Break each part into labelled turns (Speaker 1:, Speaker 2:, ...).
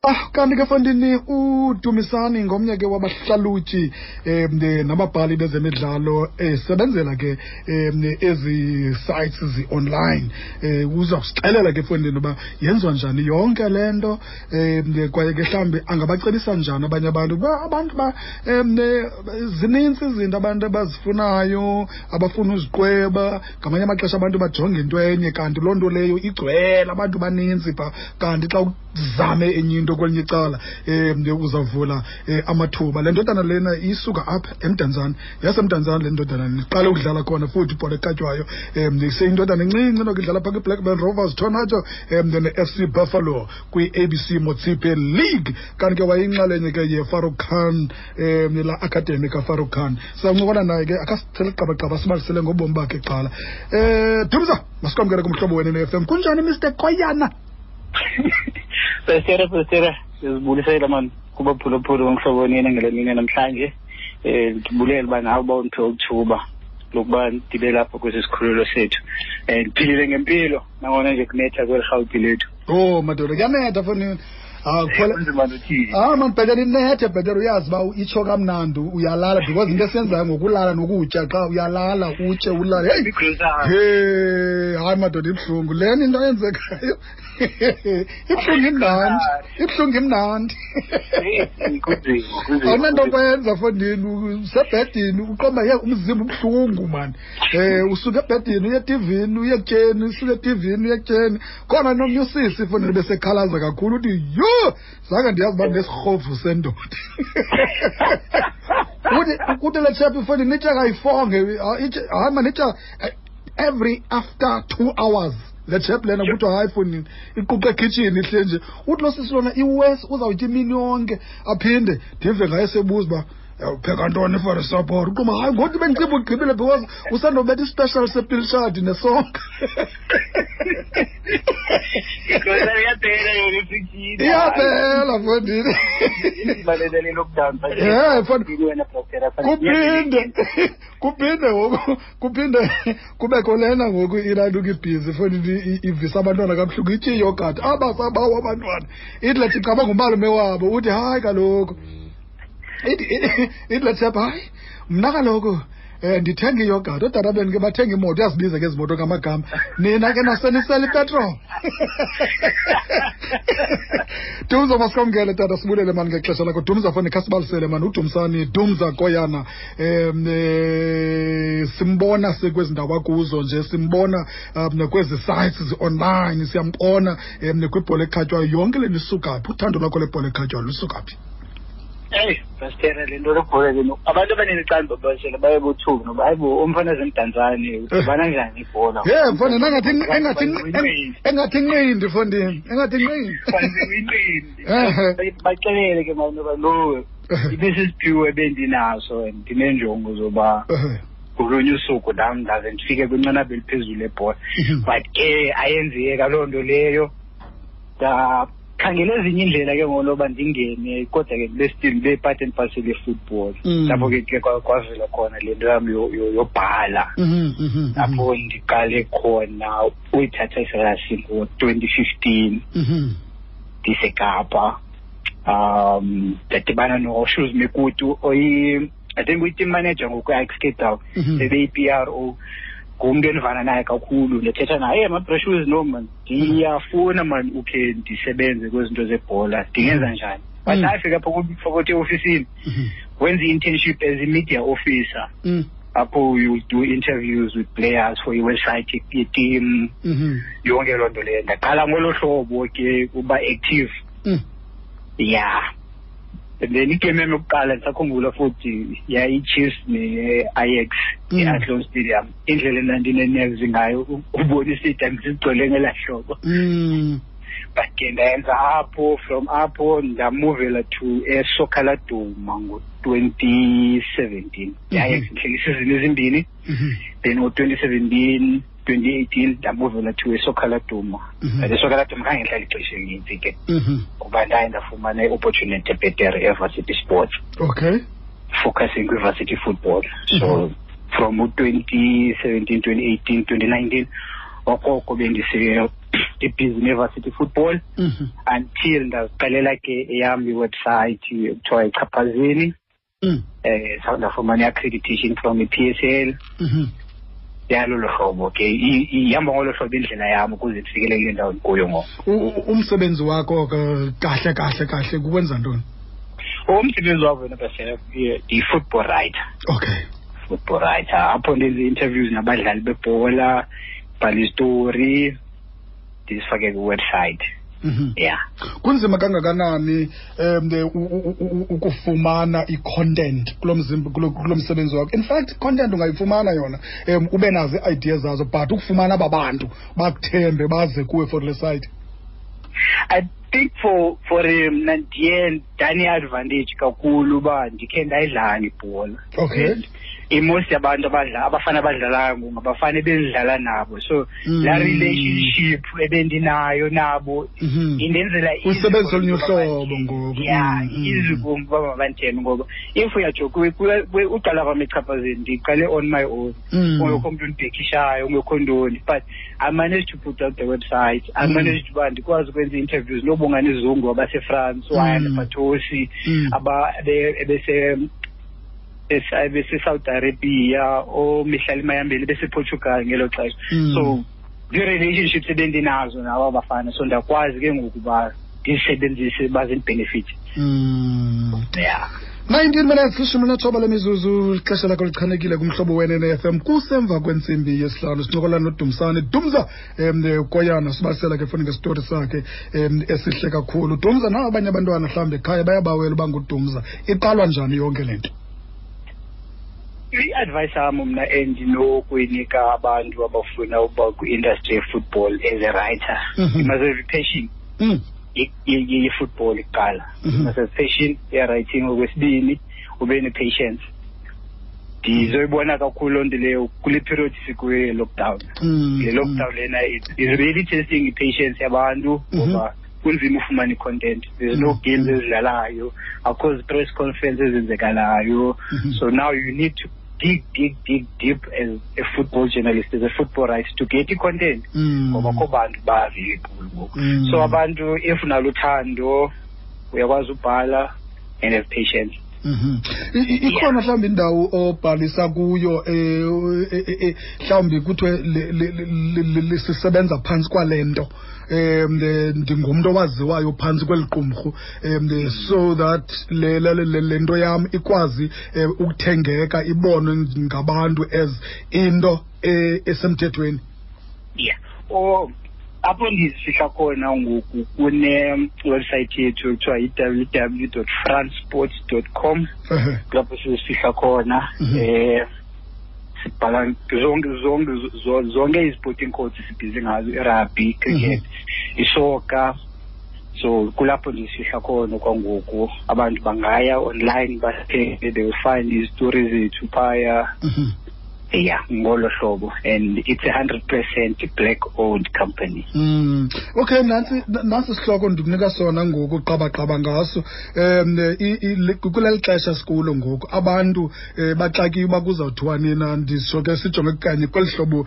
Speaker 1: Ah, kanti ke fondini uDumisani ngomnye ke wabahlalutyi nababhali bezemidlalo esebenzela ke ezi sites zi-online. Uza kusixelela ke fondini uba yenziwa njani yonke le nto, kwaye ke mhlawumbi angabacebisa njani abanye abantu uba abantu ba zinintsi izinto abantu abazifunayo, abafuna uziqweba. Ngamanye amaxesha abantu bajonge into enye kanti loo nto leyo igcwele abantu baninzi pha, kanti xa zame enye into kwelinye icala uzavula amathuba. Le ndodana lena isuka apha eMdantsane, yaseMdantsane le ndodana iqale ukudlala khona futhi ibhola ekhatywayo. Seyindodana encinci noko idlala phaa kwiBlackburn Rovers Tornado ne-FC Buffalo kwi-ABC Motsepe League. Kanti ke wayeyinxalenye ke yeFarouk Khan, la Academy kaFarouk Khan. Sizawuncokola naye ke akasithele qabaqaba sibalisele ngobomi bakhe kuqala. Dumza, masikwamkele kumhlobo wena ne-FM. Kunjani Mr Koyana?
Speaker 2: Pastor, Pastor, sizibulisela mani kubaphulaphuli bomhlobo nini ngale mini namhlanje. Ndibulela uba nawe uba undiphe uthuba lokuba ndibe lapha kwesi sikhululo sethu. Ndiphilile ngempilo nangona nje kunetha kweli Rhawuti lethu.
Speaker 1: Oh madoda, kuyanetha foni. Ah,
Speaker 2: kunzima nothini.
Speaker 1: Ah man, bhetele inethe, bhetele uyazi uba itsho kamnandi uyalala, because into esiyenzayo ngokulala nokutya, xa uyalala utye ulale. Hey, hey, hayi madoda, ibuhlungu lena into eyenzekayo. Ibuhlungu imnandi, ibuhlungu imnandi. Awunanto kwenza fondini, usebhedini uqomba ye umzimba ubuhlungu man. Usuka ebhedini uye etivini, uye ekutyeni, usuka etivini uye ekutyeni. Khona nomnye usisi fondini besekhalaza kakhulu uthi yho, zange ndiyazi uba ndinesirhovu sendoda. Uthi kuthi le chap fondini itya kayifonge, hayi man, itya every after 2 hours. Le chap lena kuthiwa hayi fondini iquqa ekhitshini ihle nje. Uthi lo sisi lona iwesi uzawutya imini yonke, aphinde ndive ngaye sebuza uba upheka ntoni for support. Uquma hayi ngoku bendiciba ugqibile because usandobetha ispecial sepilshadi nesonka.
Speaker 2: Iyaphela yona ifrijini.
Speaker 1: Iyaphela fondini.
Speaker 2: Ibalelele lockdown.
Speaker 1: Fondini. Kuphinde ngoku, kuphinde kubekho lena ngoku ilantuka ibhizi fondini, ivisa abantwana kabuhlungu, itye iyogurt. Abasabawo abantwana. Ithi lethi cabanga umalume wabo uthi hayi kaloku. Ithi lethi hayi mna kaloku ndithenga iyogurt, ootata benu ke bathenga imoto, uyazibiza ke ezi moto ngamagama. Nina ke nasenisela ipetrol. Dumza, masikwamkele tata, sibulele mani ngexesha lakho. Dumza foni khasibalisele mani, uDumsani, Dumza Koyana. Simbona sikwezi ndawo akuzo nje, simbona kwezi sites zi-online, siyambona kwibhola ekhatywayo. Yonke le nto isuka phi? Uthando lwakho lebhola ekhatywayo lusuka phi?
Speaker 2: Eyi, Pastor, le nto lebhola leno, abantu abaninzi xa ndibabalisela baye bothuka noba hayi bo, umfana zemdantsane udibana njani ibhola?
Speaker 1: Ye, mfana, engathi inqindi, mfondini, engathi inqindi.
Speaker 2: Inqindi. Baxelele ke mani noba no, ibisisiphiwo ebendinaso and ndineenjongo zoba ngolunye usuku nam ndaze ndifike kwinqanaba eliphezulu lebhola. But ke ayenzeka loo nto leyo. Ndakhangela ezinye iindlela ke ngoku loba ndingene, kodwa ke ndibe still ndibe part and parcel ye-football. Lapho ke ke kwavela khona le nto yam yobhala. Lapho ndiqale khona uyithatha iserasi ngo-2015. NdiseKapa. Ndadibana noShoes Mekutu oyi, I think uyi-team manager ngoku e-Ajax Cape Town. Ebeyi-P R O. Ngumntu endivana naye kakhulu, ndithetha naye, hey, my Shoes, no man, ndiyafuna man ukhe ndisebenze kwezinto zebhola, ndingenza njani? But afika apha kuthi eofisini, wenza i-internship as a media officer. Apho you do interviews with players for i-website ye-team. Yonke loo nto leyo. Ndaqala ngolo hlobo ke uba active. Yeah. And then igame yam yokuqala ndisakhumbula futhi yayi-Chiefs ne-Ajax e-Athlone Stadium. Indlela endandine-nerves ngayo ubona istadium sigcwele ngelaa hlobo. But ke ndayenza apho, from apho ndamuvela to eSoccer Laduma ngo-2017. I-Ajax ihleli isizini ezimbini. Then ngo-2017, 2018 ndamuvela to eSoccer Laduma. But eSoccer Laduma khange ndihlale ixesha elinintsi ke. Kuba ndaye ndafumana i-opportunity ebhetere eVarsity Sports. Focusing kwi-varsity football. So from 2017, 2018, 2019 Okoko bendise-busy ne-varsity football until ndaziqalela ke eyam iwebsite ekuthiwa iChaphazeni. Ndafumana i-accreditation from i-PSL. Yalolo hlobo ke ihamba ngolo hlobo indlela yam ukuze ndifikelele kule ndawo ndikuyo ngoku.
Speaker 1: Umsebenzi wakho kahle kahle kahle kukwenza ntoni?
Speaker 2: Umsebenzi wam wena bese ndiyi-football writer. Football writer, apho ndenza ii-interviews nabadlali bebhola, bhala izitori, ndizifake kwiwebsite. Yeah.
Speaker 1: Kunzima kangakanani ukufumana i-content kulo mzimba, kulo msebenzi wakho? In fact, content ungayifumana yona, ube nazo ii-ideas zazo, but ukufumana aba bantu bakuthembe baze kuwe for le site.
Speaker 2: I think for mna ndiye ndane-advantage kakhulu uba ndikhe ndayidlala ibhola. And i-most yabantu abafana abadlalayo ngoku ngabafana ebendidlala nabo, so laa relationship ebendinayo nabo indenzela easy
Speaker 1: Usebenzisa olunye
Speaker 2: for uba
Speaker 1: uhlobo ngoku.
Speaker 2: Yeah, easy kum uba mabandithembe, ngoba if uyajoka, uqala kwam eChaphazeni ndiqale on my own. Ungekho mntu undibhekishayo, ungekho ntoni, but I managed to put out the website. I managed uba ndikwazi ukwenza ii-interviews noBongani Zungu abaseFrance, uAyanda Patosi, ebese-Saudi Arabia, ooMihlali Mayambela bese-Portugal ngelo xesha. So zii-relationships ebendinazo nabo abafana, so ndiyakwazi ke ngoku uba ndizisebenzise bazindibenefit. Yeah.
Speaker 1: 19 minutes, 19 lemizuzu, ixesha lakho lichanekile kumhlobo wenene FM, kusemva kwentsimbi yesihlanu. Sincokola noDumsane Dumza Koyana, sibalisela ke funa ngesitory sakhe esihle kakhulu. Dumza, nabo abanye abantwana mhlawumbi ekhaya bayabawela uba nguDumza, iqalwa njani yonke le nto?
Speaker 2: I-advice yam mna endinokuyinika abantu abafuna uba kwi-industry ye-football as a writer, you must have a passion ye-football kuqala. You must have passion ye-writing. Okwesibini, ube ne-patience. Ndizoyibona kakhulu loo nto leyo kule period sikuyo ye-lockdown. Le lockdown lena is really testing i-patience yabantu, ngoba kunzima ufumana i-content. There's no games ezidlalayo, akukho zi-press conference ezenzekalayo. So now you need to dig, dig, dig deep as a football journalist, as a football writer, to get i-content. Ngoba akho bantu ba-available ngoku. So abantu, if unaluthando, uyakwazi ubhala and have patience.
Speaker 1: Ikhona mhlawumbi indawo obhalisa kuyo, mhlawumbi kuthiwe sisebenza phantsi kwale nto, ndingumntu owaziwayo phantsi kweli qumrhu, so that le nto yam ikwazi ukuthengeka, ibonwe ngabantu as into esemthethweni?
Speaker 2: Yeah. Oh, apho ndizifihla khona ngoku kune-website yethu ekuthiwa yi-w w dot fransports dot com. Kulapho sizifihla khona. Sibhala zonke izisporting codes sibhizi ngazo, i-rugby, cricket, isoka. So kulapho ndizifihla khona kwangoku. Abantu bangaya online bathenge, they will find izitori zethu phaya. Yeah, ngolo hlobo, and it's 100% black owned company.
Speaker 1: Okay, nantsi sihloko ndikunika sona ngoku, qabaqaba ngaso. Kuleli xesha sikulo ngoku, abantu baxakiwe uba kuzawuthiwa nina, ndisho ke sijonge kanye kweli hlobo,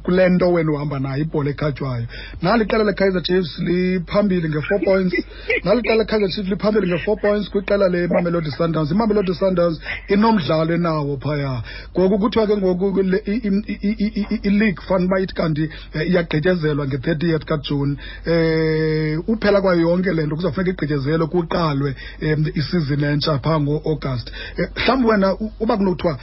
Speaker 1: kule nto wena uhamba nayo ibhola ekhatywayo. Nali iqela leKaizer Chiefs liphambili nge-4 points. Nali iqela leKaizer Chiefs liphambili nge-4 points kwiqela leMamelodi Sundowns. IMamelodi Sundowns inomdlalo enawo phaya. Ngoku kuthiwa ke ngoku i-league fund uba ithi kanti iyagqityezelwa nge-30th kaJuni. Uphela kwayo yonke le nto kuzawufuneka igqityezelwe, kuqalwe isizini entsha phaa ngo-August. Mhlawumbi wena uba kunothiwa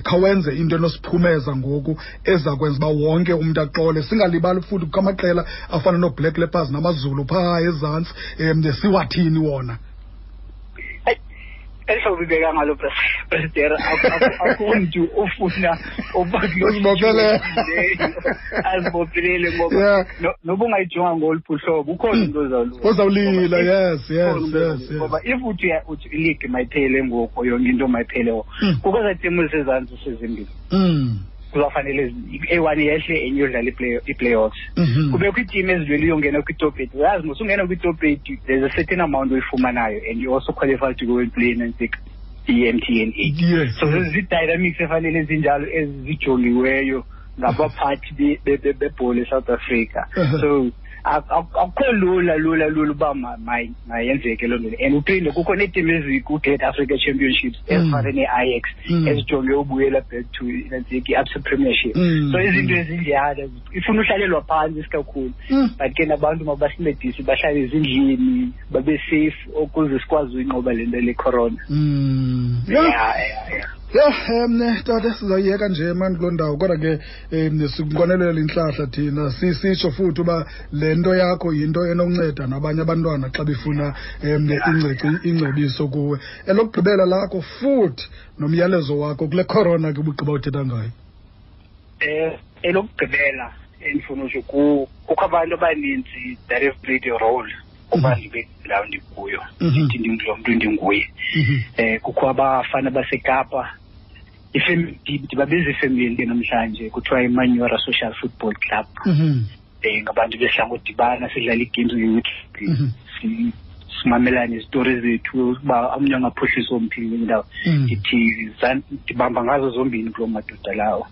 Speaker 1: khawenze into enosiphumeza ngoku eza kwenza uba wonke umntu axole, singalibali futhi kukho amaqela afana nooBlack Leopards namaZulu phaa ezantsi, siwathini wona?
Speaker 2: Eli hlobo ibeka ngalo President, akho mntu ofuna uba kuloo
Speaker 1: Uzibophelele.
Speaker 2: Azibophelele ngoba noba ungayijonga ngoluphi uhlobo, ukhona umntu ozawulila.
Speaker 1: Ozawulila,
Speaker 2: Ngoba
Speaker 1: yes, yes,
Speaker 2: ukhona umntu
Speaker 1: yes,
Speaker 2: ozawulila.
Speaker 1: yes.
Speaker 2: Ngoba if uthi ileague mayiphele ngoku, yonke into mayiphele ngoku. Kukho ezaa timu zisezantsi sezimbini. Kuzawufanele eyi-one yehle, enye iyodlala i-playoffs. Kubekho iitimu ezilwela uyongena kwi-top 8. Uyazi mos ungena kwi-top 8, there's a certain amount oyifumanayo and you also qualify to go and play in i-M T N 8. So zii-dynamics efanele ezinjalo ezijongiweyo Ngabaphathi bebhola eSouth Africa. So akukho lula lula lula uba mayenzeke loo nto. And uphinde kukho neetim ezikwi-Great Africa Championships ezifana nee-Ajax ezijonge ubuyela back to i-Absa Premiership. So izinto ezinjalo ifuna uhlalelwa phantsi isikakhulu, but ke nabantu mabasincedise bahlale ezindlini, babe safe ukuze sikwazi uyinqoba le nto le corona.
Speaker 1: Yeah. Yeah, tata, sizayiyeka nje mani kuloo ndawo, kodwa ke sikunqwenelela intlahla thina, sisitsho futhi uba le nto yakho yinto enokunceda nabanye abantwana xa befuna ingcebiso kuwe. Elokugqibela lakho futhi nomyalezo wakho kule corona ke ubugqiba uthetha ngayo.
Speaker 2: Elokugqibela endifuna usho, kukho abantu abaninzi that have played a role uba ndibe ndawo ndikuyo, ndithi ndingulo mntu ndinguye. Kukho abafana baseKapa, ndibabiza ifemeli ke namhlanje, kuthiwa iManyora Social Football Club. Ngabantu besidla ngodibana sidlala ii-games nge-weekend, simamelane izitori zethu uba omnye angaphuhlisa omphi indawo. Ndithi ndibamba ngazo zombini kuloo madoda lawo.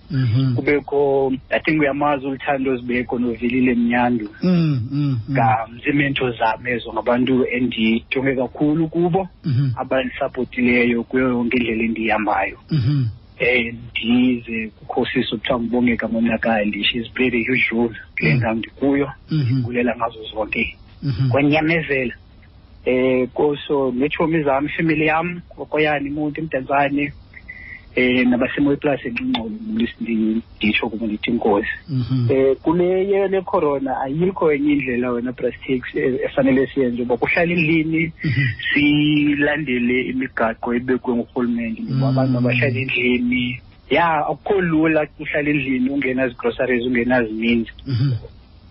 Speaker 2: Kubekho, I think uyamazi, uLuthando Zibeko noVelile Mnyandu. Ziimento zam ezo, ngabantu endijonge kakhulu kubo, abandisapotileyo kuyo yonke indlela endiyihambayo. Ndize kukho sisi okuthiwa nguBongeka Monakali, she's played a huge role kule ndawo ndikuyo, ndibulela ngazo zonke kwanyamezela. Koso neetshomi zam, ifemeli yam, okoyani imonti, eMdantsane, nabaseMooiplaas eNgxingxolo, nditsho kubo ndithi inkosi. Kule le corona ayikho enye indlela wena Brastax efanele siyenze uba kuhlala endlini, silandele imigaqo ebekwe ngurhulumente ngoba abantu mabahlale endlini. Ya, akukho lula uhlala endlini ungenazi-groceries, ungenazininzi,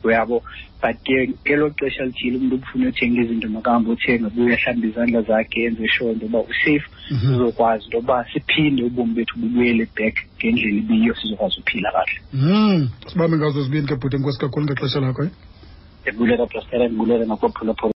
Speaker 2: uyabo, but ke ngelo xesha lithile umntu ubufuna uthenga izinto makahambe uthenga, buye ahlambe izandla zakhe, enze sure into yoba usafe, sizokwazi into yoba siphinde ubomi bethu bubuyele back ngendlela ibiyo, sizokwazi uphila kahle.
Speaker 1: Sibambe ngazo zibini ke bhuti, enkosi kakhulu ngexesha lakho.
Speaker 2: Ndibulela, Brastera, ndibulela nakwaphulaphula.